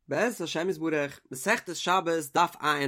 בעזרת השם יתברך, מסכת שבת דף ע"ה,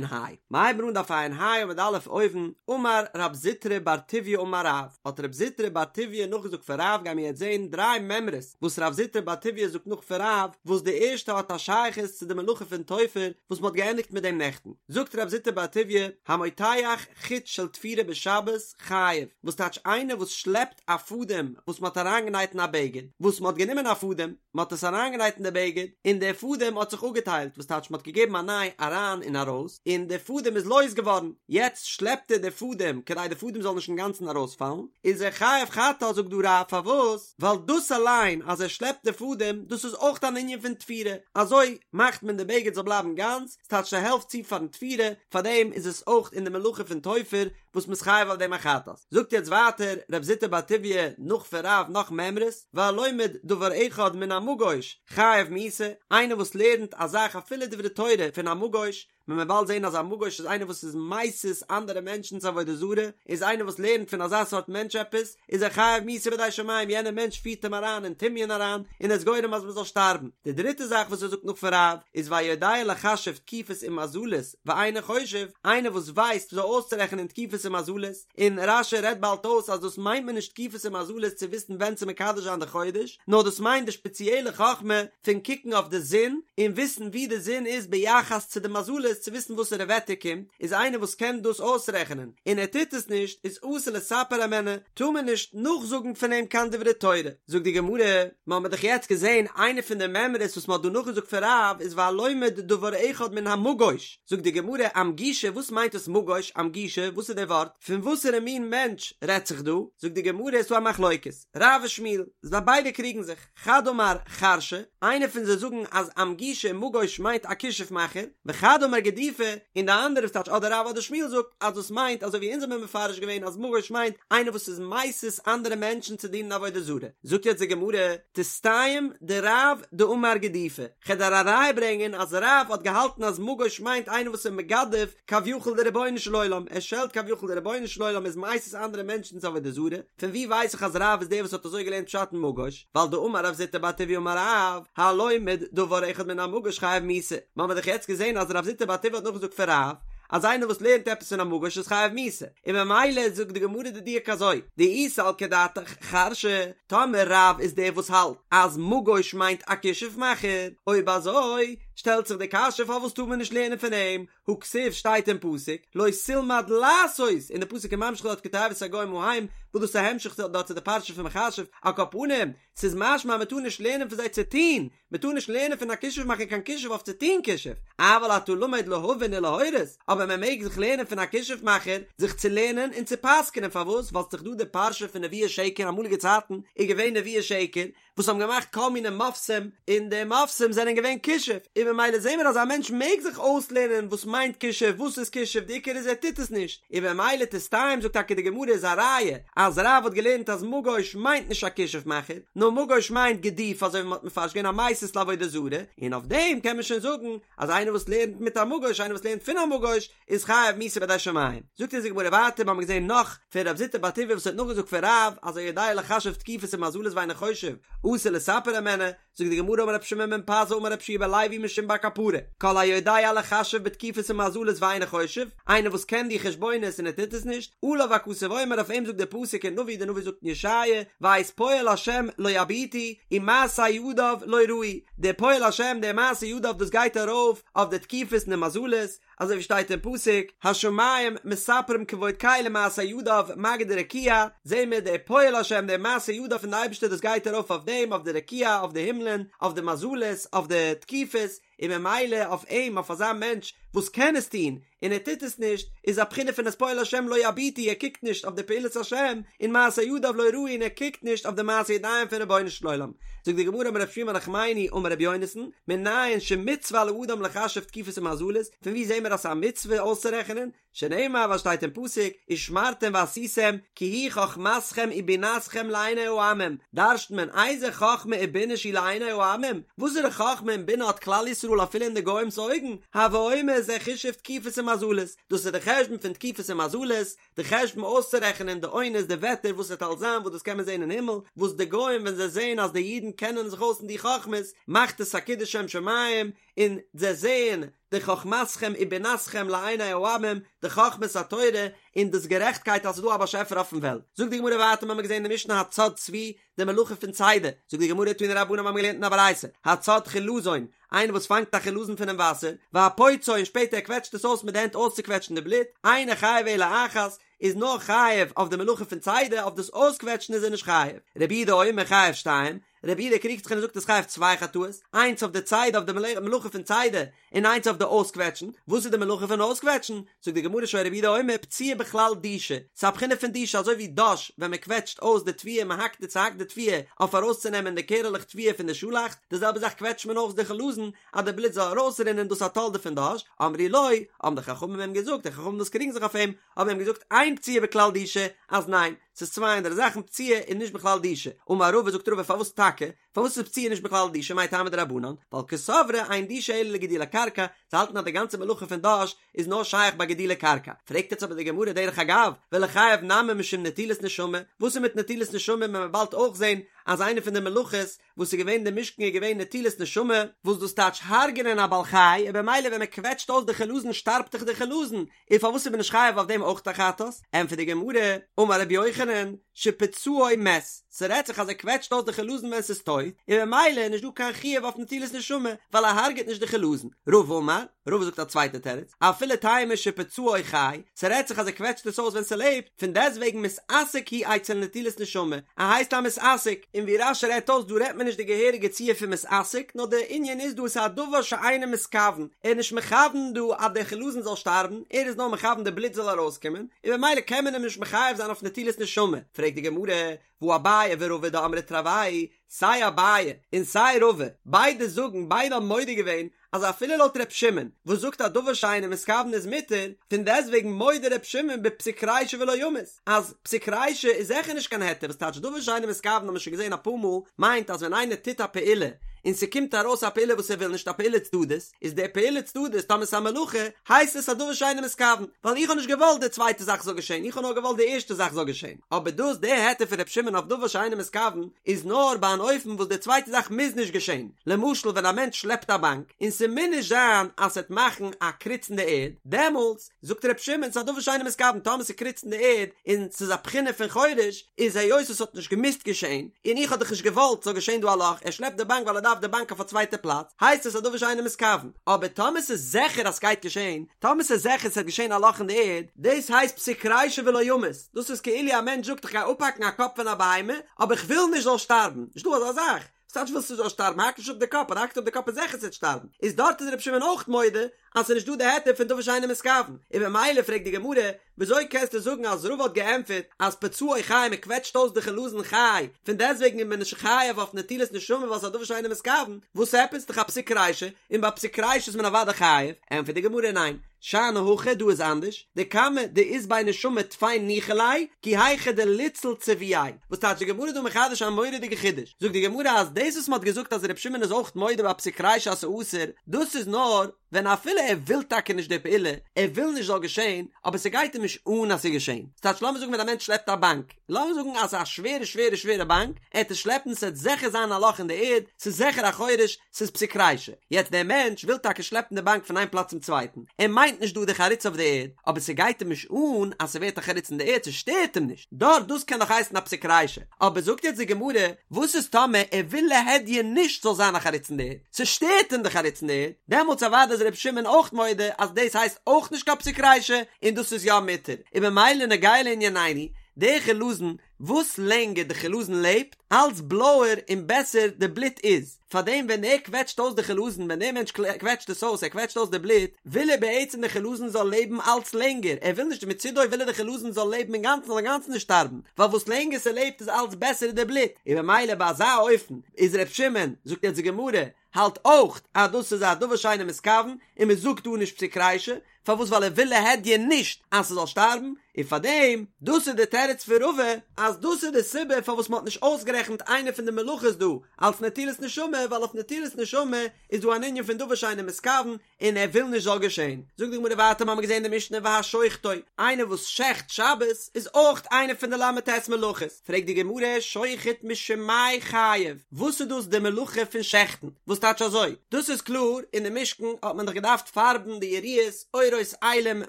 מ'הייבן אן דף ע"ה עמוד א' אויבן, אמר רב זוטרא בר טוביה אמר רב, האט רב זוטרא בר טוביה נאכגעזאגט פון רב, גיימיר יעצט זען דריי מימרות וואס רב זוטרא בר טוביה זאגט נאך פון רב, וואס די ערשטע האט א שייכות צו די מלאכה פון תופר וואס מ'האט געענדיגט מיט דעם נעכטן, זאגט רב זוטרא בר טוביה, המותח חוט של תפירה בשבת חייב, וואס טייטש איינער וואס שלעפט א פאדעם וואס מ'האט אריינגענייט אין א בגד, וואס מ'האט גענומען א פאדעם, מען האט עס אריינגענייט אין די בגד, און דער פאדעם האט זיך אפגעטיילט, וואס טייטש מען האט געגעבן א ניי אריין און ארויס, און דער פאדעם איז לויז געווארן, יעצט שלעפט ער די פאדעם כדי די פאדעם זאל נישט אינגאנצן ארויספאלן, איז ער חייב חטאת זאגט דא רב פארוואס? ווייל דאס אליין אז ער שלעפט די פאדעם דאס איז אויך אן ענין פון תפירה, אזוי מאכט מען די בגד זאל בלייבן גאנץ, ס'טייטש ס'העלפט צו פארן תפירה, פארדעם איז עס אויך אין די מלאכה פון תופר וואס מ'איז חייב אויף דעם א חטאת. זאגט יעצט ווייטער רב זוטרא בר טוביה נאך פון רב נאך מימרות, והלומד דבר אחד מן המגוש חייב מיתה, איינער וואס לערנט א זאך אפילו דברי תורה פון א מגוש, מען וועט באלד זען אז א מגוש איז איינער וואס איז מסית אנדערע מענטשן צו עבודה זרה, איז איינער וואס לערנט פון אזא סארט מענטש עפעס, איז ער חייב מיתה בידי שמים, יענער מענטש פירט אים אריין אין טמיון אריין, און איז גורם אז מען זאל שטארבן. די דריטע זאך וואס ער זאגט נאך פון רב, איז והיודע לחשב תקופות ומזלות, ואינו חושב, איינער וואס ווייסט וויאזוי אויסצורעכענען תקופות און מזלות, און רש"י רעדט באלד אויס אז דאס מיינט מען נישט תקופות און מזלות צו וויסן ווען צו מקדש זיין די חודש, נאר דאס מיינט די שפעציעלע חכמה פון קוקן אויף די זון און וויסן וואו די זון איז ביחס צו די מזלות צו וויסן וואסערע וועטער קומט, איז איינער וואס קען דאס אויסרעכענען און ער טוט עס נישט איז אסור לספר הימנו, טאר מען נישט נאכזאגן פון אים קיין דברי תורה. זאגט די גמרא, מ'האמיר דאך יעצט געזען איינע פון די מימרות וואס מ'האט דא נאכגעזאגט פון רב איז והלומד דבר אחד מן המגוש, זאגט די גמרא אמגושא וואס מיינט עס מגוש אמגושא וואס איז די ווארט פון וואסערע מין מענטש רעדט זיך דא זאגט די גמרא עס איז דא א מחלוקת רב ושמואל זיי ביידע קריגן זיך חד אמר חרשא איינער פון זיי זאגן אז אמגושא מגוש מיינט א כישוף מאכער וחד אמר גידופא און די אנדערע וואס טייטש אדער רב אדער שמואל זאגט אז דאס מיינט אזוי ווי אונז האבן מפרש געווען אז מגוש מיינט איינער וואס איז מסית אנדערע מענטשן צו דינען עבודה זרה זאגט יעצט די גמרא תסתיים דרב דאמר גידופא כ'על דיר א ראיה ברענגען אז רב האט געהאלטן אז מגוש מיינט איינער וואס איז מגדף כביכול די רבונו של עולם, ער שעלט כביכול די רבונו של עולם איז מסית אנדערע מענטשן צו עבודה זרה, פון ווי ווייס איך אז רב איז דער וואס האט אזוי געלערנט פשט אין מגוש, ווייל דאמר רב זוטרא בר טוביה אמר רב, הלומד דבר אחד מן המגוש חייב מיתה, מ'האמיר דאך יעצט געזען אז רב זוטרא בר טוביה האט נאכגעזאגט פון רב, אז איינער וואס לערנט עפעס פון א מגוש איז חייב מיתה, און ממילא זאגט די גמרא די דיוק אזוי, דאי סלקא דעתך חרשא, טאמער רב איז דער וואס האלט אז מגוש מיינט א כישוף מאכער, אויב אזוי שטעלט זיך די קשיא פארוואס טאר מען נישט לערנען פון אים, הא כתיב שטייט אין פסוק לא תלמד לעשות, און די פסוק איז ממשיך דארט כתועבת הגוים ההם, וואס דאס איז א המשך דארט צו די פרשה פון מכשף, על כל פנים, ס'איז משמע אז מ'טאר נישט לערנען פון זיי צו טון, מ'טאר נישט לערנען פון א כישוף מאכער קיין כישוף אויף צו טון כישוף, אבל אתה למד להבין ולהורות, אבער מען מעג זיך לערנען פון א כישוף מאכער זיך צו לערנען און צו פסק'נען, פארוואס? ווייל ס'איז דאך דא די פרשה פון נביאי שקר, אמאליגע צייטן איז געווען נביאי שקר וואס האבן געמאכט כל מיני מופתים, און די מופתים זענען געווען כישוף, און ממילא זעהן מיר אז א מענטש מעג זיך אויסלערנען וואס מיינט כישוף, וואס איז כישוף, די עיקר איז ער טוט עס נישט, און ממילא תסתיים זאגט טאקע די גמרא איז א ראיה אז רב האט געלערנט אז מגוש מיינט נישט א כישוף מאכער, נאר מגוש מיינט גידוף אזוי ווי מען האט מפרש געווען א מסית לעבודה זרה, און אויף דעם קען מען שוין זאגן אז איינער וואס לערנט מיט א מגוש, איינער וואס לערנט פון א מגוש, איז חייב מיתה בידי שמים. זאגט אונז די גמרא ווייטער, מיר האבן געזען נאך פון רב זוטרא בר טוביה וואס האט נאכגעזאגט פון רב אז היודע לחשב תקופות ומזלות ואינו חושב אסור לספר הימנו, זאגט די גמרא אמר רבי שמעון בן פזי אמר רבי יהושע בן לוי משום בר קפרא, כל היודע לחשב בתקופות ומזלות ואינו חושב, איינער וואס קען די חשבונות און ער טוט עס נישט, עליו הכתוב אומר אויף אים זאגט דער פסוק אין נביא, דער נביא זאגט אין ישעיה, ואת פועל השם לא יביטו, ומעשה ידיו לא ראו, דער פועל השם דער מעשה ידיו דאס גייט ארויף אויף די תקופות און די מזלות, אזוי ווי שטייט אין פסוק, השמים מספרים כבוד קל ומעשה ידיו מגיד הרקיע, זעהן מיר דער פועל השם דער מעשה ידיו פון די אייבערשטער דאס גייט ארויף אויף דעם אויף די רקיע אויף די הימלען אויף די מזלות אויף די תקופות, און ממילא אויף אים אויף אזא מענטש וואס קען עס טון און ער טוט עס נישט איז א בחינה פון את פועל השם לא יביטו ער קוקט נישט אויף די פעולת השם און מעשה ידיו לא ראו און ער קוקט נישט אויף די מעשה ידיים פון רבונו של עולם זאגט די גמרא אמר רב שמואל בר נחמני אמר רבי יונתן מנין שמצוה על האדם לחשב תקופות ומזלות פון וואו זעהן מיר אז ס'איז א מצוה אויסצורעכענען שנאמר וואס שטייט אין פסוק, ושמרתם ועשיתם, כי היא חכמתכם ובינתכם לעיני העמים, דרש'נט מען איזה חכמה ובינה שהיא לעיני העמים, וואסערע חכמה און בינה האט כלל ישראל? ישראל אפילו אין די גוים'ס אויגן, הוי אומר זה חישוב תקופות ומזלות, דאס איז די חשבון פון תקופות און מזלות, די חשבון אויסצורעכענען די עונות די וועטער וואס עס וועט אלס זיין וואס דאס קען מען זען אין הימל, וואס די גוים ווען זיי זעען אז די אידן קענען זיך אויס אין די חכמות מאכט עס א קידוש שם שמים, און זיי זעען די חכמתכם ובינתכם לעיני העמים, די חכמת התורה און דאס גערעכטקייט אז ס'איז דא א באשעפער אויפן וועלט. זאגט די גמרא ווייטער מ'האמיר געזען אין די משנה הצד צבי, די מלאכה פון צידה, זאגט די גמרא תנו רבנן מ'האמיר געלערנט אין א ברייתא, הצד חילזון, איינער וואס פאנגט א חילזון פונעם וואסער, והפוצעו און שפעטער ער קוועטשט עס אויס מיט די הענט אויסצוקוועטשן די בלוט, אינו חייב אלא אחת, איז נאר חייב אויף די מלאכה פון צידה, אויף דאס אויסקוועטשן איז ער נישט חייב. רבי יהודה אומר חייב שתיים, רבי יהודה קריגט זיך און ער זאגט ער איז חייב צוויי חטאות, איינס אויף די צידה אויף די מלאכה פון צידה, און איינס אויף די אויסקוועטשן, וואס איז די מלאכה פון אויסקוועטשן? זאגט די גמרא שהיה רבי יהודה אומר פציעה בכלל דישה, ס'איז א בחינה פון דישה אזוי ווי דש ווען מען קוועטשט אויס די תבואה מען האקט די צוהאקט די תבואה אויף ארויסצונעמען די קערעלעך תבואה פון די שאלאכץ, די זעלבע זאך קוועטשט מען אויס די חלזון אז די בלוט זאל ארויסרינען דאס א תולדה פון דש, אמרו לו, האבן די חכמים אים געזאגט, די חכמים וואס קריגן זיך אויף אים, האבן אים געזאגט אין פציעה בכלל דישה, אז ניין, ס'איז צוויי אנדערע זאכן, פציעה איז נישט בכלל דישה, אמר רבא זאגט רבא פארוואס טאקע? פארוואס איז פציעה נישט בכלל דישה מאי טעמא דרבנן? ווייל קסברי אין דישה אלא לגידולי קרקע, זיי האלטן אז די גאנצע מלאכה פון דש איז נאר שייך ביי גידולי קרקע. פרעגט יעצט אבער די גמרא דרך אגב, וליחייב נמי משום נטילת נשמה, וואס איז מיט נטילת נשמה ווען מען באלד אויך זען אז איינע פון די מלאכות וואס איז געווען אין די משכן איז געווען נטילת נשמה, וואס דאס טייטש הרג'נען א בעל חי, און במילא ווען מען קוועטשט אויס די חלזון שטארבט דאך די חלזון, און פארוואס איז מען נישט חייב אויף דעם אויך א חטאת? ענטפערט די גמרא, אמר רבי יוחנן, שפצעו מת, ס'רעדט זיך אז ער קוועטשט אויס די חלזון ווען ס'איז טויט, און במילא איז נישט דא קיין חיוב אויף נטילת נשמה, ווייל ער הרג'עט נישט די חלזון. רבא אמר, רבא זאגט א צווייטע תירוץ, אפילו תימא שפצעו חי, ס'רעדט זיך אז ער קוועטשט עס אויס ווען ס'לעבט, פון דעסטוועגן מתעסק הוא אצל נטילת נשמה, ער הייסט א מתעסק, און ווי רש"י רעדט אויס דא רעדט מען נישט די געהעריגע ציור פון מתעסק, נאר די ענין איז דא עס איז א דבר שאינו מתכוון, ער איז נישט מכוון דא אז דער חלזון זאל שטארבן, ער איז נאר מכוון די בלוט זאל ארויסקומען, און במילא קען מען אים נישט מחייב זיין אויף נטילת נשמה, פרעגט די גמרא, והא אביי ורבא דאמרי תרוייהו, סיי אביי און סיי רבא, ביידע זאגן, ביידע האבן מודה געווען, אז אפילו לויט ר' שמעון, וואס זאגט אז דבר שאינו מתכוון איז מותר, פון דעסטוועגן מודה ר' שמעון בפסיק רישא ולא ימות, אז פסיק רישא איז זיכער נישט קיין היתר, וואס טייטש דבר שאינו מתכוון האבן מיר שוין געזען אפאר מאל, מיינט אז ווען איינער טוט א פעולה, און ס'קומט ארויס א פעולה וואס ער וויל נישט א פעולה צדדית, איז די פעולה צדדית טאמער ס'איז א מלאכה, הייסט עס א דבר שאינו מתכוון, ווייל איך האב נישט געוואלט די צווייטע זאך זאל געשען, איך האב נאר געוואלט די ערשטע זאך זאל געשען. אבער דאס די היתר פון ר' שמעון אויף דבר שאינו מתכוון, איז נאר ביי אן אופן וואס די צווייטע זאך מוז נישט געשען, למשל ווען א מענטש שלעפט א באנק, און ס'מוז נישט זיין אז ס'עט מאכן א קריץ אין די ערד, דעמאלטס זאגט ר' שמעון ס'איז א דבר שאינו מתכוון, טאמער ס'קריצט אין די ערד און ס'איז א בחינה פון חורש, איז היות עס האט נישט געמוזט געשען, און איך האב דאך נישט געוואלט ס'זאל געשען דא א לאך, ער שלעפט די באנק ווייל ער דארף די באנק אויף א צווייטע פלאץ, הייסט עס א דבר שאינו מתכוון. אבער טאמער ס'איז זיכער אז ס'גייט געשען, טאמער ס'איז זיכער ס'וועט געשען א לאך אין די ערד, דאס הייסט פסיק רישא ולא ימות, דאס איז כאילו א מענטש זאגט איך גיי אפהאקן א קאפ פון א בהמה, אבער איך וויל נישט זאל שטארבן, נישט דא אזא זאך, וואס טייטש ווילסט נישט זאל שטארבן, האק נישט אפ די קאפ, אז האקסט אפ די קאפ איז זיכער ס'וועט שטארבן, איז דארט איז רבי שמעון אויך מודה אז ס'איז נישט דא די היתר פון דבר שאינו מתכוון, און במילא פרעגט די גמרא, וויאזוי קענסטו זאגן אז רבא האט געענטפערט אז פצעו חי מען קוועטשט אויס די חלזון חי, פון דעסטוועגן איז מען נישט חייב אויף נטילת נשמה ווייל ס'איז א דבר שאינו מתכוון, וואס עפעס? דאך א פסיק רישא, און ביי פסיק רישא איז מען אוודאי חייב, ענטפערט די גמרא ניין, שאני הכא דא איז אנדערש, דכמה דאית ביה נשמה טפי ניחא ליה, כי היכי דליציל ציבועיה, וואס טייטש די גמרא דא מחדש א מורא'דיגע חידוש, זאגט די גמרא אז דאס וואס מ'האט געזאגט אז ר' שמעון איז אויך מודה ביי פסיק רישא אז ס'אסור, דאס איז נאר ווען אפילו ער וויל טאקע נישט די פעולה, ער וויל נישט זאל געשען, אבער ס'גייט אים נישט אן אז ס'איז געשען. ס'טייטש לאמיר זאגן ווען א מענטש שלעפט א באנק, לאמיר זאגן אז ס'איז א שווערע שווערע שווערע באנק, ער העט עס שלעפן ס'עט זיכער זיין א לאך אין די ערד, ס'איז זיכער א חורש, ס'איז פסיק רישא. יעצט דער מענטש וויל טאקע שלעפן די באנק פון איין פלאץ צום צווייטן, ער מיינט נישט דא די חריץ אויף די ערד, אבער ס'גייט אים נישט אן אז ס'ווערט א חריץ אין די ערד, ס'שטערט אים נישט, דארט דאס קען נאך הייסן א פסיק רישא. אבער זאגט יעצט די גמרא, וואס איז טאמער ער וויל להדיא נישט ס'זאל זיין א חריץ אין די ערד, ס'שטערט אים די חריץ אין די ערד, דעמאלטס אוודאי איז ר' שמעון אויך מודה אז דאס הייסט אויך נישט קיין פסיק רישא און דאס איז יא מותר, און ממילא נוגע לענינינו, די חילזון, וואס לענגער די חילזון לעבט, אלץ בלויער און בעסער די בלוט איז, פארדעם ווען ער קוועטשט אויס די חילזון, ווען דער מענטש קוועטשט עס אויס, ער קוועטשט אויס די בלוט, וויל ער בעצם די חילזון זאל לעבן אלץ לענגער, ער וויל נישט מצידו וויל ער די חילזון זאל לעבן אינגאנצן זאל אינגאנצן נישט שטארבן, ווייל וואס לענגער ס'לעבט איז אלץ בעסער איז די בלוט, און במילא ביי אזא אופן איז ר' שמעון, זאגט יעצט די גמרא, האלט אויך אז דאס איז א דבר שאינו מתכוון, און מ'זאגט דא נישט פסיק רישא, פארוואס ווייל ער וויל להדיא נישט אז ס'זאל שטארבן, און פארדעם, דאס איז די תירוץ פון רבא, אז דאס איז די סיבה פארוואס מ'האט נישט אויסגערעכנט איינע פון די מלאכות דא אלס נטילת נשמה, ווייל אויף נטילת נשמה איז דא אן ענין פון דבר שאינו מתכוון, און ער וויל נישט זאל געשען. זאגט די גמרא ווייטער מ'האמיר געזען די משנה והשוחטו, איינער וואס שעכט שבת איז אויך איינע פון די ל"ט מלאכות, פרעגט די גמרא שוחט משום מאי חייב, וואס איז דאס די מלאכה פון שעכטן, וואס טייטש אזוי? דאס איז קלאר, אין די משכן האט מען דאך געדארפט פארבן די יריעות, עורות אילים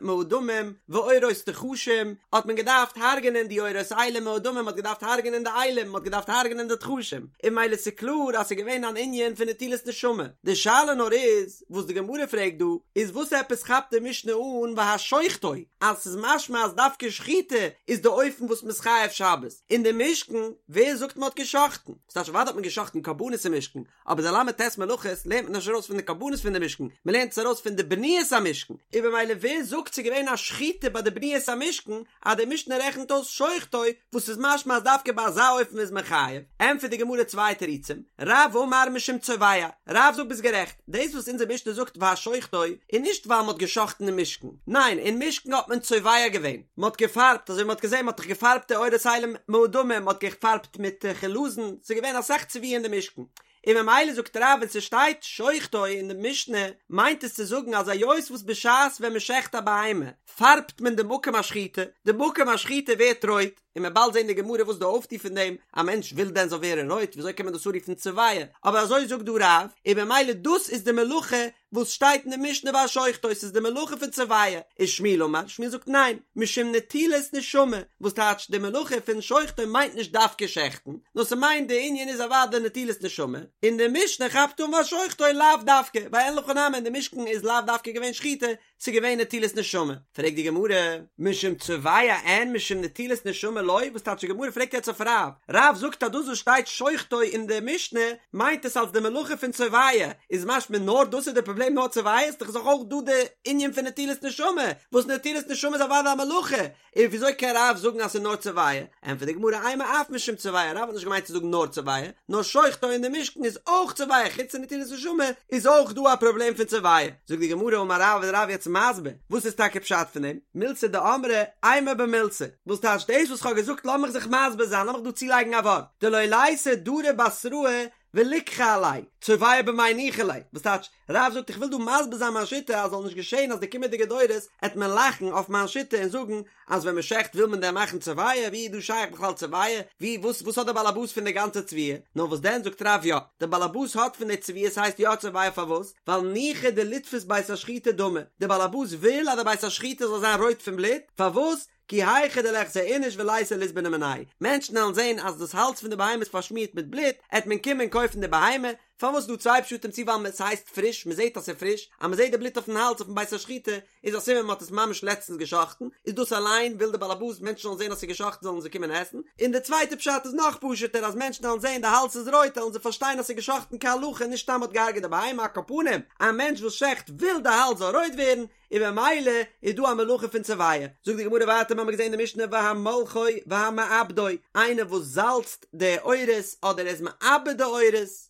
מאדמים ועורות תחשים, האט מען געדארפט הרג'נען די עורות אילים מאדמים, מ'האט געדארפט הרג'נען די אילים, מ'האט געדארפט הרג'נען די תחשים, און ממילא ס'קלאר אז ס'איז געווען אן ענין פון נטילת נשמה. די שאלה נאר איז, וואס די גמרא פרעגט דא, איז וואס עפעס כאפט די משנה אן והשוחטו, אז ס'איז משמע אז דווקא שחיטה איז די אופן וואס מ'איז חייב שבת, אין די משכן, ווער זאגט מ'האט גע'שחט'ן? ס'טייטש אוודאי האט מען גע'שחט'ן קרבנות אין משכן, אבער די ל"ט מלאכות לערנט מען נישט ארויס פון די קרבנות פון די משכן, מ'לערנט עס ארויס פון די בניית המשכן, און במילא ווער זאגט ס'איז געווען א שחיטה ביי די בניית המשכן, אז די משנה רעכנט אויס שוחטו, וואס איז משמע אז דווקא ביי אזא אופן איז מען חייב, ענטפערט די גמרא צוויי תירוצים, רב אמר משום צובע, רב זאגט ביסט גערעכט, דאס וואס אונזער משנה זאגט והשוחטו איז נישט ווייל מען האט גע'שחט'ן אין משכן, ניין אין משכן האט מען צובע געווען, מען האט געפארבט, אזוי ווי מען האט געזען מען האט דאך געפארבט די עורות אילים מאדמים, מען האט געפארבט מיט חלזון, ס'איז געווען אסאך צביעה אין די משכן, און ממילא זאגט רב ווען ס'שטייט שוחטו אין די משנה מיינט עס צו זאגן אז היות וואס בשעת ווען מ'שעכט א בהמה פארבט מען די מקום השחיטה, די מקום השחיטה ווערט רויט, און מ'עט באלד זען די גמרא וואס די אויפטו פון דעם, א מענטש וויל דען זאל ווערן רויט, וויאזוי קען מען דאס אנרופן צובע, אבער אזוי זאגט דא רב, און ממילא דאס איז די מלאכה וואס שטייט אין די משנה והשוחטו ס'איז די מלאכה פון צובע, ושמואל אמר, שמואל זאגט ניין, משום נטילת נשמה, וואס טייטש די מלאכה פון שוחטו מיינט נישט דווקא שעכטן, נאר ס'מיינט די ענין איז אוודאי נטילת נשמה, און די משנה כאפט אן והשוחטו לאו דווקא, ווייל אין הכי נמי אין די משכן איז לאו דווקא געווען שחיטה, ס'איז געווען נטילת נשמה. פרעגט די גמרא, משום צובע אין משום נטילת נשמה לא, וואס טייטש די גמרא פרעגט יעצט אויף רב, רב זאגט אז דאס וואס שטייט שוחטו אין די משנה מיינט עס אלס די מלאכה פון צובע, איז משמע נאר דאס איז די פראבלעם נאר צובע איז דאך אויך דא די ענין פון נטילת נשמה, וואס נטילת נשמה איז אוודאי א מלאכה, און וויאזוי קען רב זאגן אז ס'איז נאר צובע? ענטפערט די גמרא אימא אף משום צובע, רב האט נישט געמיינט צו זאגן נאר צובע, נאר שוחטו אין די משכן איז אויך צובע, חוץ פון נטילת נשמה איז אויך דא א פראבלעם פון צובע. זאגט די גמרא אמר רב איז רב יעצט מסביר וואס איז טאקע פשט פון דעם, מילתא דאמרי אימא במילתא, וואס טייטש דאס וואס כ'האב געזאגט לאמיך זיך מסביר זיין לאמיך דא צולייגן א ווארט, דלא ליתי דרי בתראי וליקחי עליה, צובע במאי ניחא ליה, וואס טייטש, רב זאגט איך וויל דא מסביר זיין מיין שיטה אז זאל נישט געשען אז די קומענדיגע דורות עט מען לאכן אויף מיין שיטה און זאגן אז ווען מען שעכט וויל מען דען מאכן צובע, ווי איז דא שייך בכלל צובע, ווי וואס וואס האט דער באלעבאס פון די גאנצע צביעה, נאר וואס דען זאגט רב יא, דער באלעבאס האט פון די צביעה ס'הייסט יא צובע פארוואס, ווייל ניחא דליתפוס בית השחיטה דמא, דער באלעבאס וויל אז די בית השחיטה זאל זיין רויט פון בלוט, פארוואס, כי היכי דליחזי איניש וליתי ליזבני מיניה, מענטשן וועלן זען אז דאס האלז פון די בהמה איז פארשמירט מיט בלוט, עט מען קומען קויפן די בהמה, פארוואס איז דא צוויי פשטים צו ווייל ס'הייסט פריש, מ'זעט אז ס'איז פריש, אז מ'זעט די בלוט אויפן האלז אויפן בית השחיטה איז א סימן מ'האט עס ממש לעצטנס גע'שחט'ן, איז דאס אליין וויל די באלעבאס מענטשן זאלן זען אז ס'איז גע'שחט'ן זאלן זיי קומען עסן, און די צווייטע פשט איז נאך פשוט'ער אז מענטשן וועלן זען די האלז איז רויט וועלן זיי פארשטיין אז ס'איז גע'שחט'ן כהלכה נישט סתם מ'האט געהארגעט די בהמה, על כל פנים א מענטש וואס שעכט וויל די האלז זאל רויט ווערן, און במילא איז דא א מלאכה פון צובע. זאגט די גמרא ווייטער מ'האמיר געזען אין די משנה והמולחו והמעבדו, איינער וואס זאלצט די עורות אדער ער איז מעבד די עורות,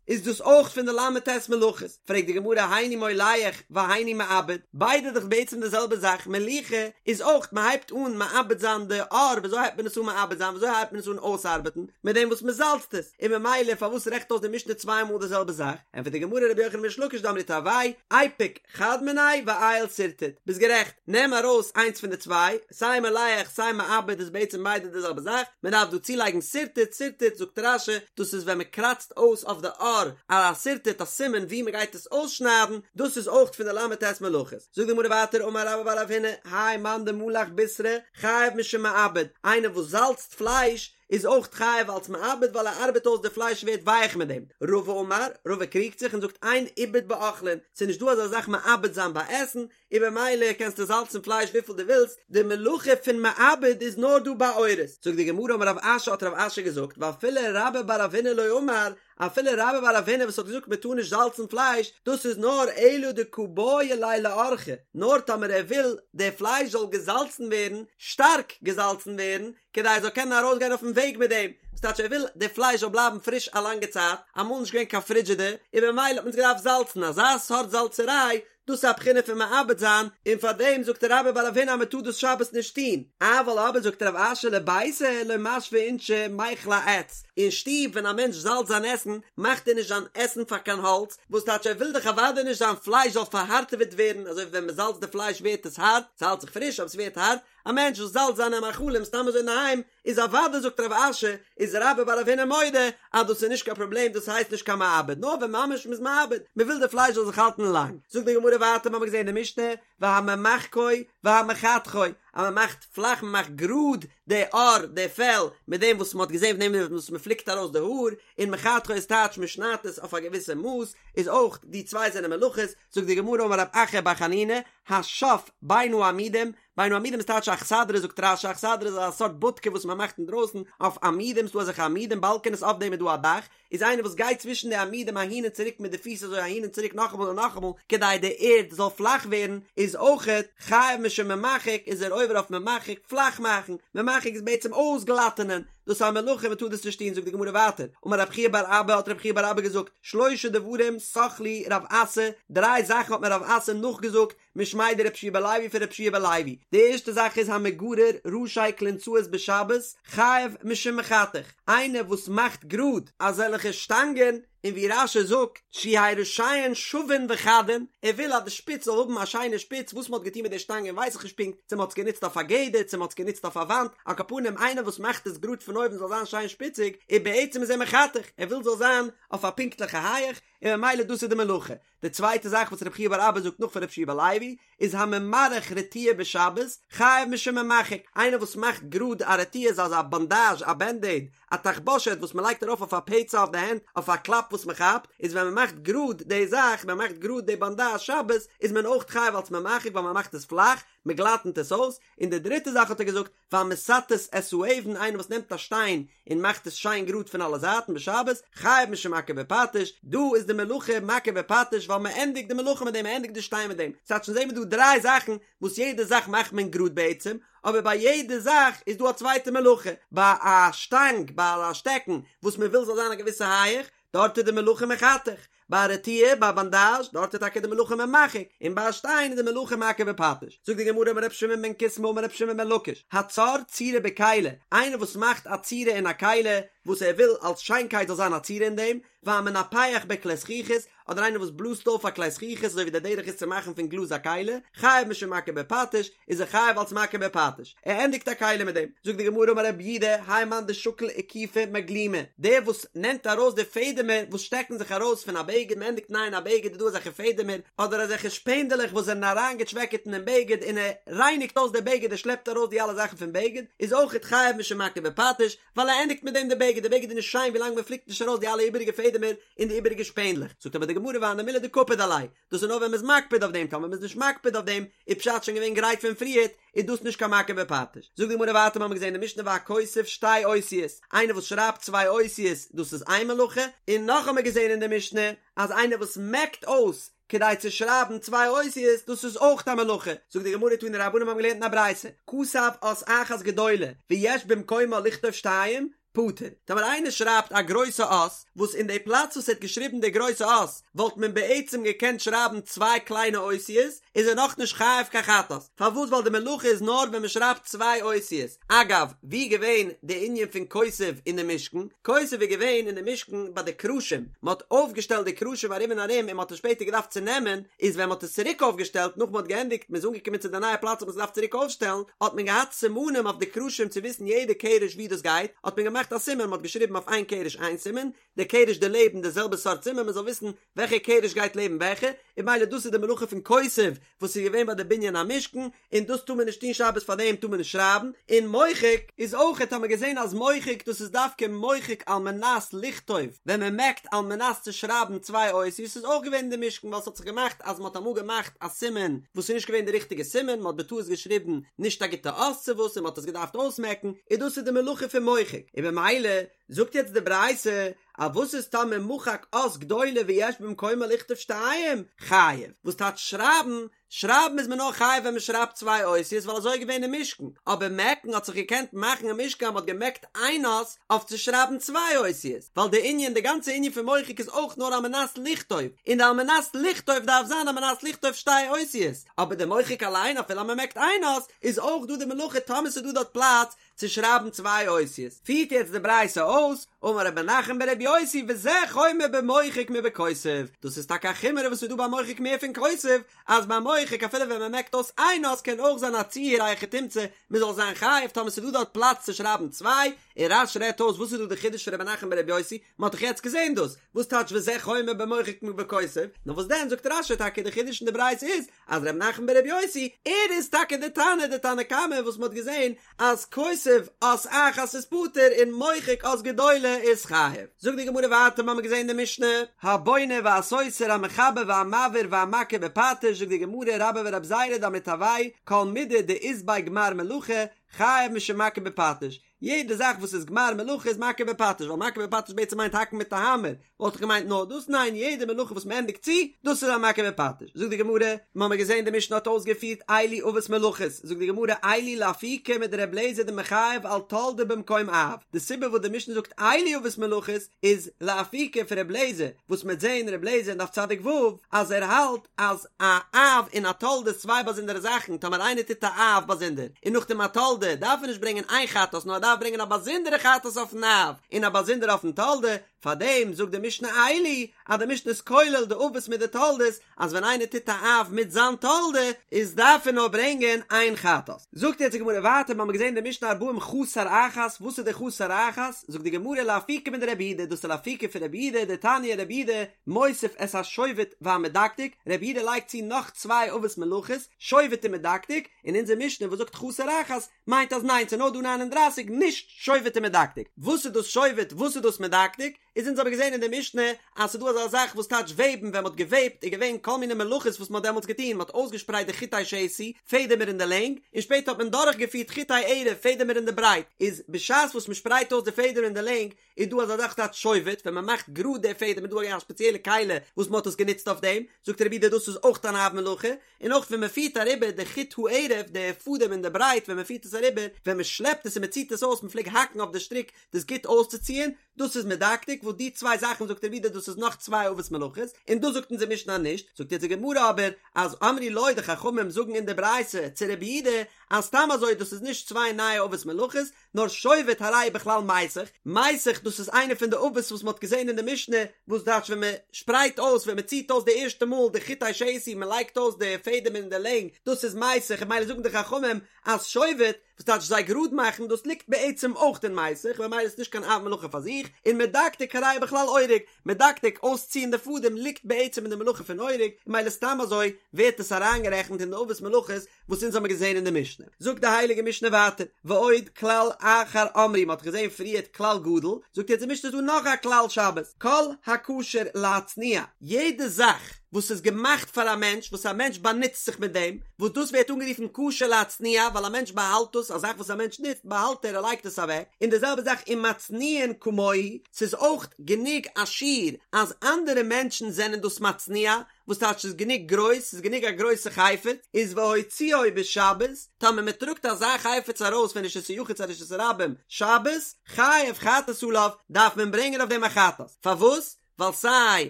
איז דאס אויך פון די ל"ט מלאכות, פרעגט די גמרא היינו מולח והיינו מעבד, ביידע איז דאך בעצם די זעלבע זאך, מליחה איז אויך מ'הייבט אן מעבד זיין די עור, וויאזוי הייבט מען עס אן מעבד זיין, וויאזוי הייבט מען עס אן אויסארבעטן, מיט דעם וואס מ'זאלצט עס, און במילא פארוואס רעכנט אויס די משנה צוויי מאל די זעלבע זאך, ענטפערט די גמרא רבי יוחנן וריש לקיש דאמרי תרוייהו, איפוק חד מינייהו ועייל שרטוט, ביסט גערעכט, נעם ארויס איינס פון די צוויי, סיי מולח סיי מעבד איז בעצם ביידע די זעלבע זאך, מען דארף דא צולייגן שרטוט, שרטוט זאגט רש"י, דאס איז ווען מען קראצט אויס אויף די עור א שרטוט א סימן ווי מען גייט עס אויסשניידן, דאס איז אויך פון די ל"ט מלאכות. זאגט די גמרא ווייטער אמר רבה בר רב הונא, האי מאן דמלח בישרא חייב משום מעבד, איינער וואס זאלצט פלייש איז אויך חייב אלס מעבד ווייל ער ארבעט אויס די פלייש ווערט ווייך מיט דעם. רבא אמר, רבא קריגט זיך און זאגט אין עיבוד באוכלין, ס'איז נישט דא אזא זאך מעבד זיין ביי עסן, און במילא קענסטו זאלצן פלייש וויפיל דו ווילסט, די מלאכה פון מעבד איז נאר דא ביי עורות. זאגט די גמרא אמר רב אשי האט רב אשי געזאגט ואפילו רבה בר רב הונא לא אמר, אפילו רבה בר רב הונא וואס האט געזאגט מען טאר נישט זאלצן פלייש, דאס איז נאר אלא דקא בעי ליה לאורחא, נאר טאמער ער וויל די פלייש זאל געזאלצן ווערן, שטארק געזאלצן ווערן, כדי ער זאל קענען ארויסגיין אויפן וועג מיט דעם, וואס טייטש ער וויל די פלייש זאל בלייבן פריש א לאנגע צייט, אמאל נישט געווען קיין פרידזשידער, און במילא האט מען עס געדארפט זאלצן, אזא סארט זאלצעריי, דאס איז א בחינה פון מעבד זיין, און פאר דעם זאגט רבה בר רב הונא אז מען טאר דאס שבת נישט טון, אבל אבער זאגט רב אשי לביתא לא משוי אינשי מיכלי אעץ, אין שטוב ווען א מענטש זאלצט זיין עסן מאכט ער נישט זיין עסן פאר קיין האלץ, וואס טייטש ער וויל דאך אוודאי נישט זיין פלייש זאל פארהארטעוועט ווערן, אזוי ווי ווען מען זאלצט די פלייש ווערט עס הארט, ס'האלט זיך פריש אבער ס'ווערט הארט, א מענטש וואס זאלצט זיינע מאכלים סתם אזוי אינדערהיים איז אוודאי זאגט רב אשי איז רבה בר רב הונא מודה אז דאס איז נישט קיין פראבלעם דאס הייסט נישט קיין מעבד נאר ווען ממש מ'איז מעבד מ'וויל די פלייש זאל זיך האלטן לאנג זאגט די גמרא ווייטער מ'האמיר געזען אין די משנה והממחקו והמחתכו אז מ'מאכט פלאך מ'מאכט גראד די עור די פעל מיט דעם וואס מ'האט געזען פון דעם וואס מ'פליקט ארויס די האר און מחתכו איז טייטש מ'שניידט עס אויף א געוויסע מאס איז אויך די צוויי זענען מלאכות זאגט די גמרא אמר רב אחא בר חנינא השף בין העמודים בין העמודים איז טייטש אכסדרה זאגט רש"י אכסדרה איז א סארט בודקע וואס מען מאכט אינדרויסן אויף עמודים ס'דא אזעלכע עמודים באלקענעס אויף דעם איז דא א דאך איז איינער וואס גייט צווישן די עמודים אהין און צוריק מיט די פיס אזוי אהין און צוריק נאכאמאל און נאכאמאל כדי די ערד זאל פלאך ווערן איז אויכעט חייב משום ממחק איז ער עובר אויף ממחק פלאך מאכן ממחק איז בעצם אויסגלאטענען דאס איז א מלאכה מען טאר דאס נישט טון זאגט די גמרא ווייטער אמר רב חייא בר אבא האט רב חייא בר אבא געזאגט שלשה דברים סח לי רב אסי דריי זאכן האט מיר רב אסי נאכגעזאגט משמיה דרבי יהושע בן לוי פון רבי יהושע בן לוי, די ערשטע זאך איז המגרר ראשי כלונסאות בשבת חייב משום מחתך, איינער וואס מאכט גראד אזעלכע שטאנגען, און ווי רש"י זאגט שיהו ראשיהן שווין וחדין, ער וויל אז די שפיץ זאל האבן א שיינע שפיץ, וואס מען האט געטון מיט די שטאנגען ווייס איך נישט פונקט, צו מען האט עס גענוצט אויף א גדר, צו מען האט עס גענוצט אויף א וואנט, על כל פנים איינער וואס מאכט עס גראד פון אויבן זאל זיין שיין שפיציג, און בעצם איז ער מחתך, ער וויל זאל זיין אויף א פונקטליכע הייעך, און ממילא דאס איז די מלאכה. די צווייטע זאך וואס רב חייא בר אבא זאגט נאך פון רבי יהושע בן לוי איז הממרך רטיה בשבת חייב משום ממחק, איינער וואס מאכט גראד א רטיה איז אזא באנדאזש א בענדעיד א תחבושת וואס מען לייגט ארויף אויף א פצע אויף די הענט אויף א קלאפ וואס מען כאפט, איז ווען מען מאכט גראד די זאך מען מאכט גראד די באנדאזש שבת איז מען אויך חייב אלס ממחק ווייל מען מאכט עס פלאך מען גלאטענט עס אויס, און די דריטע זאך האט ער געזאגט והמסתת את האבן, איינער וואס נעמט א שטיין און מאכט עס שיין גראד פון אלע זייטן בשבת, חייב משום מכה בפטיש, דא איז די מלאכה מכה בפטיש ווייל מען ענדיגט די מלאכה מיט דעם, מען ענדיגט די שטיין מיט דעם, ס'טייטש אונז זעהן מיר דא דריי זאכן וואס יעדע זאך מאכט מען גראד בעצם, אבער ביי יעדע זאך איז דא א צווייטע מלאכה, ביי א שטאנג, ביי א שטעקן וואס מען וויל זאל זיין א געוויסע הייעך, דארט איז די מלאכה מחתך, ביי א רטיה, ביי א באנדאזש, דארט איז טאקע די מלאכה ממחק, און ביי א שטיין איז די מלאכה מכה בפטיש. זאגט די גמרא אמר ר' שמעון בן קיסמא אמר ר' שמעון בן לקיש, הצר צורה בכלי, איינער וואס מאכט א צורה אין א כלי, וואס ער וויל אלס שיינקייט זאל זיין א צורה אין דעם, והמנפח בכלי זכוכית, אדער איינער וואס בלאזט אויף א כלי זכוכית אזוי ווי דער דרך איז צו מאכן פון גלאז א כלי, חייב משום מכה בפטיש, איז ער חייב אלס מכה בפטיש, ער ענדיגט א כלי מיט דעם, זאגט די גמרא אמר רב יהודה, האי מאן דשקיל איקופי מגלימא, דער וואס נעמט ארויס די פעדעמער וואס שטעקן זיך ארויס פון א בגד, מען ענדיגט נייען א בגד איז דא אזעלכע פעדעמער, אדער אזעלכע שפענדעלעך וואס זענען אריינגעטשוועקעט אינעם בגד און ער רייניגט אויס די בגד ער שלעפט ארויס די אלע זאכן פון בגד, איז אויכעט חייב משום מכה בפטיש, ווייל ער ענדיגט מיט דעם די בגד, די בגד איז נישט שיין ווילאנג מען פליקט נישט ארויס די אלע איבעריגע פעדעמער און די איבעריגע שפענדלעך, זאגט אבער די גמרא והני מילי דקפיד עלייהו, דאס איז נאר ווען מ'איז מקפיד אויף דעם, טאמער מ'איז נישט מקפיד אויף דעם, איז פשט שוין געווען גרייט פון פריערט, איז דאס נישט קיין מכה בפטיש. זאגט די גמרא ווייטער מ'האמיר געזען אין די משנה והכותב שתי אותיות, איינער וואס שרייבט צוויי אותיות דאס איז איין מלאכה, און נאך האמיר געזען אין די משנה אז איינער וואס מעקט אויס כדי צו שרייבן צוויי אותיות דאס איז אויך א מלאכה, זאגט די גמרא תנו רבנן מ'האמיר געלערנט אין א ברייתא, כתב אות אחת גדולה ויש במקומה לכתוב שתיים, פטור. טאמער איינער שרייבט א גרויסע אות, וואס אין די פלאץ וואס ער האט געשריבן די גרויסע אות, וואלט מען בעצם געקענט שרייבן צוויי קליינע אותיות, איז ער נאכנישט חייב קיין חטאת. פארוואס? ווייל די מלאכה איז נאר ווען מען שרייבט צוויי אותיות. אגב, ווי איז געווען די ענין פון כותב אין די משכן? כותב איז געווען אין די משכן ביי די קרשים, מען האט אויפגעשטעלט די קרשים ארום און ארום און מען האט עס שפעטער געדארפט צונעמען, איז ווען מען האט עס צוריק אויפגעשטעלט נאך מען האט געענדיגט מען איז אנגעקומען צו די נייע פלאץ האט מען עס געדארפט צוריק אויפשטעלן האט מען געהאט סימנים אויף די קרשים צו וויסן יעדע קרש ווי דאס גייט האט מען געמאכט א סימן מען האט געשריבן אויף איין קרש איין סימן די קרש דערלעבן די זעלבע סארט סימן מען זאל וויסן וועלכע קרש גייט לעבן וועלכע און ממילא דאס איז די מלאכה פון כותב וואס איז געווען ביי די בנין המשכן און דאס טאר מען נישט טון שבת פאר דעם טאר מען נישט שרייבן, און מוחק איז אויכעט האט מען געזען אז מוחק דאס איז דווקא מוחק על מנת לכתוב ווען מען מעקט על מנת צו שרייבן צוויי אותיות איז אויך געווען אין די משכן ווייל ס'האט זיך געמאכט אז מ'האט אמאל געמאכט א סימן וואס איז נישט געווען די ריכטיגע סימן מ'האט בטעות געשריבן נישט א גוטע אות צו וואס און מ'האט עס געדארפט אויסמעקן און דאס איז די מלאכה פון מוחק און במילא. זאגט יעצט די ברייתא, אז וואס איז טאמער מחק אות גדולה ויש במקומה לכתוב שתיים, חייב, וואס טייטש שרייבן, שרייבן איז מען נאר חייב ווען מען שרייבט צוויי אותיות ווייל אזוי איז געווען אין משכן, אבער מעקן האט זיך געקענט מאכן אין משכן אז מען האט געמעקט איין אות אויף צו שרייבן צוויי אותיות, ווייל די ענין די גאנצע ענין פון מוחק איז אויך נאר על מנת לכתוב, און די על מנת לכתוב דארף זיין על מנת לכתוב שתי אותיות, אבער די מוחק אליין אפילו אז מען מעקט איין אות איז אויך דא די מלאכה טאמער ס'איז דא דארט פלאץ צו שרייבן צוויי אותיות, פירט יעצט די ברייתא אויס, אמר ר' מנחם בר' יוסי וזה חומר במוחק מבכותב, דאס איז טאקע א חומרא וואס איז דא ביי מוחק מער פון כותב, אז ביי מוחק אפילו ווען מען מעקט אויס איין אות קען אויך זיין א ציור א היכי תמצא מען זאל זיין חייב טאמער ס'איז דא דארט פלאץ צו שרייבן צוויי, און רש"י רעדט אויס וואס איז דא די חידוש פון ר' מנחם בר' יוסי, מען האט דאך יעצט געזען דאס, וואס טייטש וזה חומר במוחק מבכותב, נאר וואס דען זאגט רש"י טאקע די חידוש אין די ברייתא איז אז ר' מנחם בר' יוסי ער איז טאקע די תנא די תנא קמא וואס מ'האט געזען אז כותב אות אחת איז פטור און מוחק אות גדולה איז חייב. זאגט די גמרא ווייטער מ'האמיר געזען די משנה הבונה והסותר המחבר והמבעיר והמכה בפטיש זאגט די גמרא רבה ורב זירא דאמרי תרוייהו כל מידי דאית ביה גמר מלאכה חייב משום מכה בפטיש יעדע זאך וואס איז גמר מלאכה איז מכה בפטיש, ווייל מכה בפטיש בעצם מיינט האקן מיט א האמער, וואלט איך געמיינט נאר דאס, ניין יעדע מלאכה וואס מען ענדיגט צו, דאס איז א מכה בפטיש. זאגט די גמרא, מ'האמיר געזען די משנה האט אויסגעפירט אלו אבות מלאכות, זאגט די גמרא אלו לאפוקי מדר' אליעזר דמחייב על תולדה במקום אב, די סיבה וואס די משנה זאגט אלו אבות מלאכות איז לאפוקי פון ר' אליעזר, וואס מ'עט זען ר' אליעזר אין דף צדיק ו' אז ער האלט אז א אב און א תולדה איז צוויי באזונדערע זאכן, טאמער איינער טוט א אב באזונדער און נאכדעם א תולדה, דארף ער נישט ברענגען איין חטאת נאר ער דארף ברענגען א באזונדערע חטאת אויפן אב און א באזונדערע אויפן תולדה, פארדעם זאגט די משנה אלו אז די משנה איז כולל די אבות מיט די תולדות, אז ווען איינער טוט א אב מיט זיין תולדה איז דארף ער נאר ברענגען איין חטאת. זאגט יעצט די גמרא ווייטער, מ'האמיר געזען די משנה ארבעים חסר אחת, וואס איז די חסר אחת? זאגט די גמרא לאפוקי מדרבי יהודה, דאס איז לאפוקי פון רבי יהודה, דתניא רבי יהודה, מוסיף את השובת והמדקדק, רבי יהודה לייגט צו נאך צוויי אבות מלאכות, שובת און מדקדק, און אונזער משנה וואס זאגט חסר אחת, מיינט אז ניין ס'איז נאר דא ניין און דרייסיג נישט שובת און מדקדק. וואס איז דאס שובת וואס איז דאס מדקדק? איז אונז האבן געזען אין די משנה אז ס'איז דא אזא זאך וואס טייטש וועבן ווען מ'האט געוועבט איז געווען כל מיני מלאכות וואס מ'האט דעמאלטס געטון מ'האט אויסגעשפרייט די חוטי שתי, פעדעמער אין די לענג, און שפעטער האט מען דורכגעפירט חוטי ערב, פעדעמער אין די ברייט, איז בשעת וואס מ'שפרייט אויס די פעדעמער אין די לענג, איז דא אזא זאך טייטש שובת, ווען מען מאכט גראד די פעדעם איז דא א ספעציעלע כלי וואס מען האט עס גענוצט אויף דעם, זאגט רבי יהודה דאס איז אויך אן אב מלאכה, און אויך ווען מען פירט אריבער די חוט הערב די פאדעם אין די ברייט ווען מען פירט עס אריבער, ווען מען שלעפט עס און מען ציט עס אויס מען פלעג האקן אויף די שטריק דאס גוט אויסצוציען, דאס איז מדקדק, וואס די צוויי זאכן זאגט רבי יהודה דאס איז נאך צוויי אבות מלאכות, און דאס זאגט אונזער משנה נישט, זאגט יעצט די גמרא אבער אז אמרו לו די חכמים זאגן אין די ברייתא צו רבי יהודה אז סתם אזוי דאס איז נישט צוויי נייע אבות מלאכות, נאר שובת הרי בכלל מיסך, מיסך דאס איז איינע פון די אבות וואס מען האט געזען אין די משנה, וואס טייטש ווען מען שפרייט אויס ווען מען ציט אויס די ערשטע מאל די חוטי שתי מען לייגט אויס די פעדעם אין די לענג, דאס איז מיסך און ממילא זאגן די חכמים אז שובת, וואס טייטש זיי גראד מאכן, דאס ליגט בעצם אויך אין מיסך, ממילא איז נישט קיין אב מלאכה פאר זיך, און מדקדק הרי בכלל אורג, מדקדק אויסציען די פאדעם ליגט בעצם אין די מלאכה פון אורג, און ממילא סתם אזוי ווערט עס אריינגערעכנט אין די אבות מלאכות וואס אונז האמיר געזען אין די משנה. זאגט די הייליגע משנה ווייטער, ועוד כלל אחר אמרו, מ'האט געזען פריערט כלל גדול, זאגט יעצט די משנה איז דא נאך א כלל שבת, כל הכשר להצניע, יעדע זאך וואס איז געמאכט פאר א מענטש, וואס א מענטש באנוצט זיך מיט דעם, וואס דאס ווערט אנגערופן כשר להצניע, ווייל א מענטש באהאלט דאס, א זאך וואס א מענטש נוצט באהאלט ער, ער לייגט עס אוועק, און די זעלבע זאך ומצניעין כמוהו, ס'איז אויך גענוג א שיעור אז אנדערע מענטשן זענען דאס מצניע, וואס טייטש ס'איז גענוג גרויס, ס'איז גענוג א גרויסע חפץ, איז והוציאו בשבת, טאמער מען טראגט אזא חפץ ארויס פון רשות היחיד צו רשות הרבים שבת, חייב חטאת עליו, דארף מען ברענגען אויף דעם א חטאת. פארוואס? ווייל סיי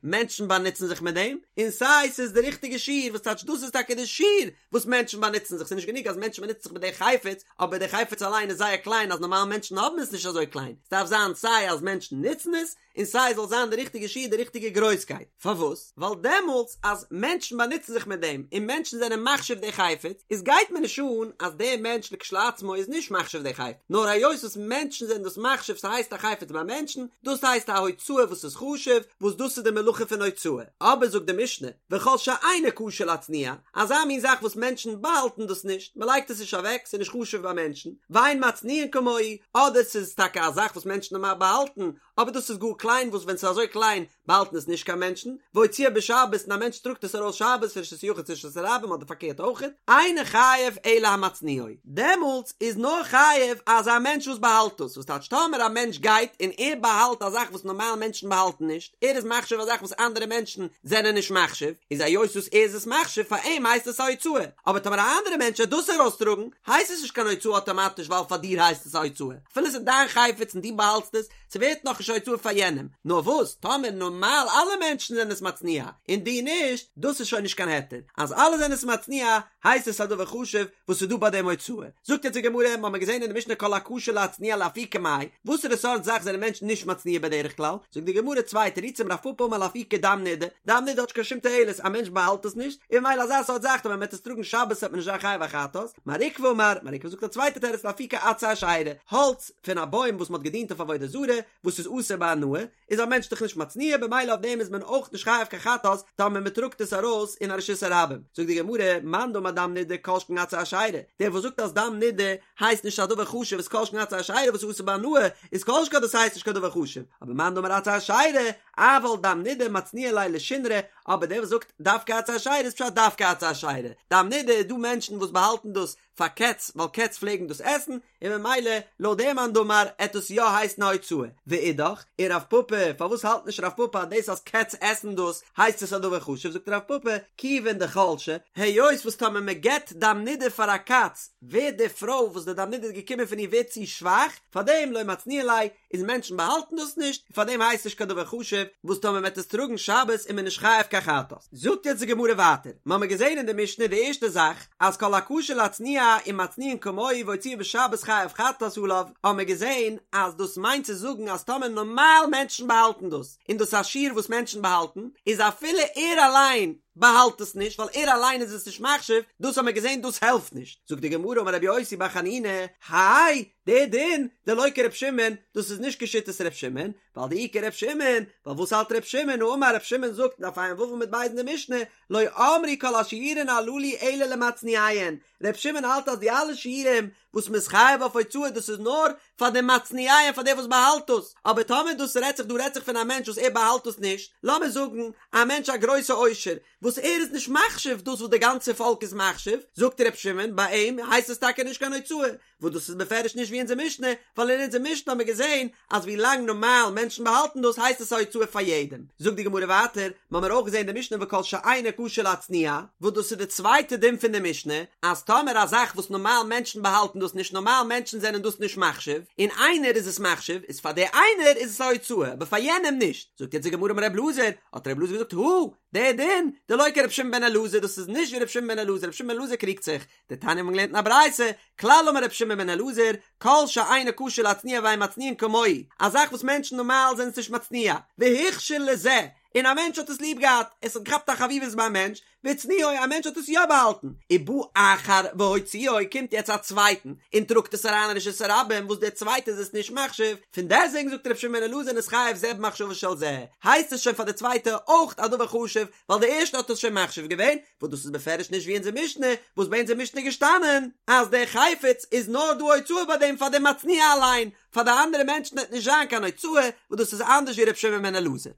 מענטשן באנוצן זיך מיט דעם, און סיי ס'איז די ריכטיגע שיעור, וואס טייטש דאס איז טאקע די שיעור וואס מענטשן באנוצן זיך, ס'איז נישט גענוג אז מענטשן באנוצן זיך מיט די חפץ, אבער די חפץ אליין איז זייער קליין אז נארמאל מענטשן האבן עס נישט אזוי קליין, ס'דארף זיין סיי אז מענטשן נוצן עס, און סיי זאל זיין די ריכטיגע שיעור די ריכטיגע גרויסקייט, פארוואס? ווייל דעמאלטס אז מענטשן באנוצן זיך מיט דעם און מענטשן זענען מחשיב די חפץ, איז גייט מיר נישט אן אז דער מענטש לכשלעצמו איז נישט מחשיב די חפץ, נאר היות וואס מענטשן זענען דאס מחשיב ס'הייסט א חפץ ביי מענטשן, דאס הייסט א הוצאה וואס איז חשוב, וואס דאס איז די מלאכה פון הוצאה, אבער זאגט די משנה, וכל שאינו כשר להצניע, אזא מין זאך וואס מענטשן באהאלטן דאס נישט, מען לייגט עס נישט אוועק, ס'איז נישט חשוב ביי מענטשן, ואין מצניעין כמוהו, אדער ס'איז טאקע א זאך וואס מענטשן נארמאל באהאלטן, אבער דאס איז גאר קליין וואס ווען ס'איז אזוי קליין באהאלטן עס נישט קיין מענטשן, והוציאו בשבת און א מענטש טראגט עס ארויס שבת פון רשות היחיד צו רשות הרבים אדער פארקערט אויכעט, אינו חייב אלא המצניעו, דעמאלטס איז נאר חייב אזא מענטש וואס באהאלט עס, וואס טייטש טאמער א מענטש גייט און ער באהאלט א זאך וואס נארמאל מענטשן באהאלטן נישט, ער איז מחשיב א זאך וואס אנדערע מענטשן זענען נישט מחשיב, איז היות וואס ער איז עס מחשיב פאר אים הייסט עס א הוצאה, אבער טאמער א אנדערע מענטש וועט דאס ארויסטראגן הייסט עס נישט קיין הוצאה אטאמאטיש ווייל פאר דיר הייסט עס א הוצאה, אפילו עס איז דיין חפץ און דו באהאלטסט עס, ס'ווערט נאכנישט א הוצאה פאר יענעם, נאר וואס טאמער נארמאל אלע מענטשן זענען עס מצניע און דו נישט, דאס איז שוין נישט קיין היתר, אז אלע זענען עס מצניע הייסט עס א דבר חשוב וואס איז דא ביי דעם הוצאה. זאגט יעצט די גמרא, מ'האמיר געזען אין די משנה כל הכשר להצניע לאפוקי מאי, וואסערע סארט זאך זענען מענטשן נישט מצניע בדרך כלל? זאגט די גמרא צוויי תירוצים רב פפא אמר לאפוקי דם נידה, דם נידה האט נישט קיין שום תועלת, א מענטש באהאלט עס נישט, און ממילא אזא סארט זאך טאמער מ'וועט עס טראגן שבת וועט מען נישט זיין חייב א חטאת, מר עוקבא אמר, מר עוקבא זאגט א צווייטע תירוץ לאפוקי עצי אשירה, האלץ פון א בוים וואס מ'האט געדינט אויף עבודה זרה, וואס איז אסור בהנאה, איז א מענטש דאך נישט מצניע במילא אויף דעם איז מען אויך נישט חייב קיין חטאת טאמער מען טראגט עס ארויס אין א רשות הרבים. זאגט די גמרא, מאן דאמר דם נידה כל שכן עצי אשירה, דער וואס זאגט אז דם נידה הייסט נישט א דבר חשוב איז כל שכן עצי אשירה וואס איז אסור בהנאה איז כל שכן דאס הייסט נישט קיין דבר חשוב, אבער מאן דאמר עצי אשירה אבל דם נידה מצניע ליה לשונרא, אבער דער וואס זאגט דווקא עצי אשירה איז פשט דווקא עצי אשירה, דם נידה איז דא מענטשן וואס באהאלטן דאס פאר קעץ ווייל קעץ פלעגן דאס עסן, און ממילא לויט דעם מאן דאמר עט עס יא הייסן א הוצאה, ואידך, און רב פפא, פארוואס האלט נישט רב פפא אז דאס אז קעץ עסן דאס הייסט עס א דבר חשוב, זאגט רב פפא, כיוון דחלשא, היות וואס טאמער מען געט דם נידה פאר א קאץ ווערט די פרוי וואס די דם נידה איז געקומען פון איר ווערט צו שוואך, פארדעם לא מצניעא ליה, איז מענטשן באהאלטן דאס נישט, און פארדעם הייסט נישט קיין דבר חשוב, וואס טאמער מען וועט עס טראגן שבת איז מען נישט חייב קיין חטאת. זאגט יעצט די גמרא ווייטער, מ'האמיר געזען אין די משנה די ערשטע זאך, אז כל הכשר להצניע ומצניעין כמוהו והוציאו בשבת חייב חטאת עליו, האמיר געזען אז דאס מיינט צו זאגן אז טאמער נארמאל מענטשן באהאלטן דאס, און דאס איז א שיעור וואס מענטשן באהאלטן, איז אפילו ער אליין באהאלט עס נישט ווייל ער אליין איז עס נישט מחשיב, דאס האמיר געזען דאס העלפט נישט. זאגט די גמרא אמר רבי יוסי בר חנינא, האי, דער דין, דלא כר' שמעון, דאס איז נישט כשיטת ר' שמעון, ווייל דאי כר' שמעון, ווייל וואס האלט ר' שמעון, האמר ר' שמעון זאגט דף ע"ו עמוד ב' אין די משנה, לא אמרו כל השיעורין הללו אלא למצניעיהן, ר' שמעון האלט אז די אלע שיעורים וואס מ'איז חייב אויף הוצאה דאס איז נאר פאר די מצניעיהן פאר דער וואס באהאלט דאס, אבער טאמער דאס רעדט זיך דא רעדט זיך פון א מענטש וואס ער באהאלט דאס נישט, לאמיר זאגן א מענטש א גרויסע עושר, וואס ער איז נישט מחשיב דאס וואס די גאנצע פאלק איז מחשיב, זאגט ר' שמעון ביי אים הייסט עס טאקע נישט קיין הוצאה, וואס דאס איז בפירוש נישט ווי אונזער משנה, ווייל אין אונזער משנה האבן מיר געזען אז ווי לאנג נארמאל מענטשן באהאלטן דאס הייסט עס א הוצאה פאר יעדעם. זאגט די גמרא ווייטער, מ'האמיר אויך געזען אין די משנה וכל שאינו כשר להצניע, וואס דאס איז די צווייטע דין פון די משנה, אז טאמער א זאך וואס נארמאל מענטשן באהאלטן דאס נישט נארמאל מענטשן זענען דאס נישט מחשיב, און איינער איז עס מחשיב, איז פאר דער איינער איז עס א הוצאה, אבער פאר יענעם נישט. זאגט יעצט די גמרא אמר ר' אלעזר, האט ר' אלעזר געזאגט, הא, דער דין, דלא כר' שמעון בן אלעזר, דאס איז נישט ווי ר' שמעון בן אלעזר, ר' שמעון בן אלעזר קריגט זיך, דתניא מ'האט געלערנט אין א ברייתא, כלל אמר ר' שמעון בן אלעזר, כל שאינו כשר להצניע ואין מצניעין כמוהו, א זאך וואס מענטשן נארמאל זענען עס נישט מצניע, והוכשר לזה, און א מענטש האט עס ליב געהאט, עס האט געכאפט א חביבות ביים מענטש, והצניעו, א מענטש האט עס יא באהאלטן, ובא אחר והוציאו, קומט יעצט א צווייטן, און טראגט עס אריין אין רשות הרבים, וואס דער צווייטער איז עס נישט מחשיב, פון דעסטוועגן זאגט ר' שמעון בן אלעזר נתחייב זה במחשבה של זה, הייסט עס שוין פאר די צווייטע אויך א דבר חשוב, ווייל די ערשטע האט עס שוין מחשיב געווען, וואס דאס איז בפירוש נישט ווי אונזער משנה, וואס ביי אונזער משנה איז געשטאנען אז דער חפץ איז נאר דא הוצאה ביי דעם פאר דעם מצניע אליין, פאר די אנדערע מענטשן וועט נישט זיין קיין הוצאה, וואס דאס איז אנדערש ווי ר' שמעון בן אלעזר.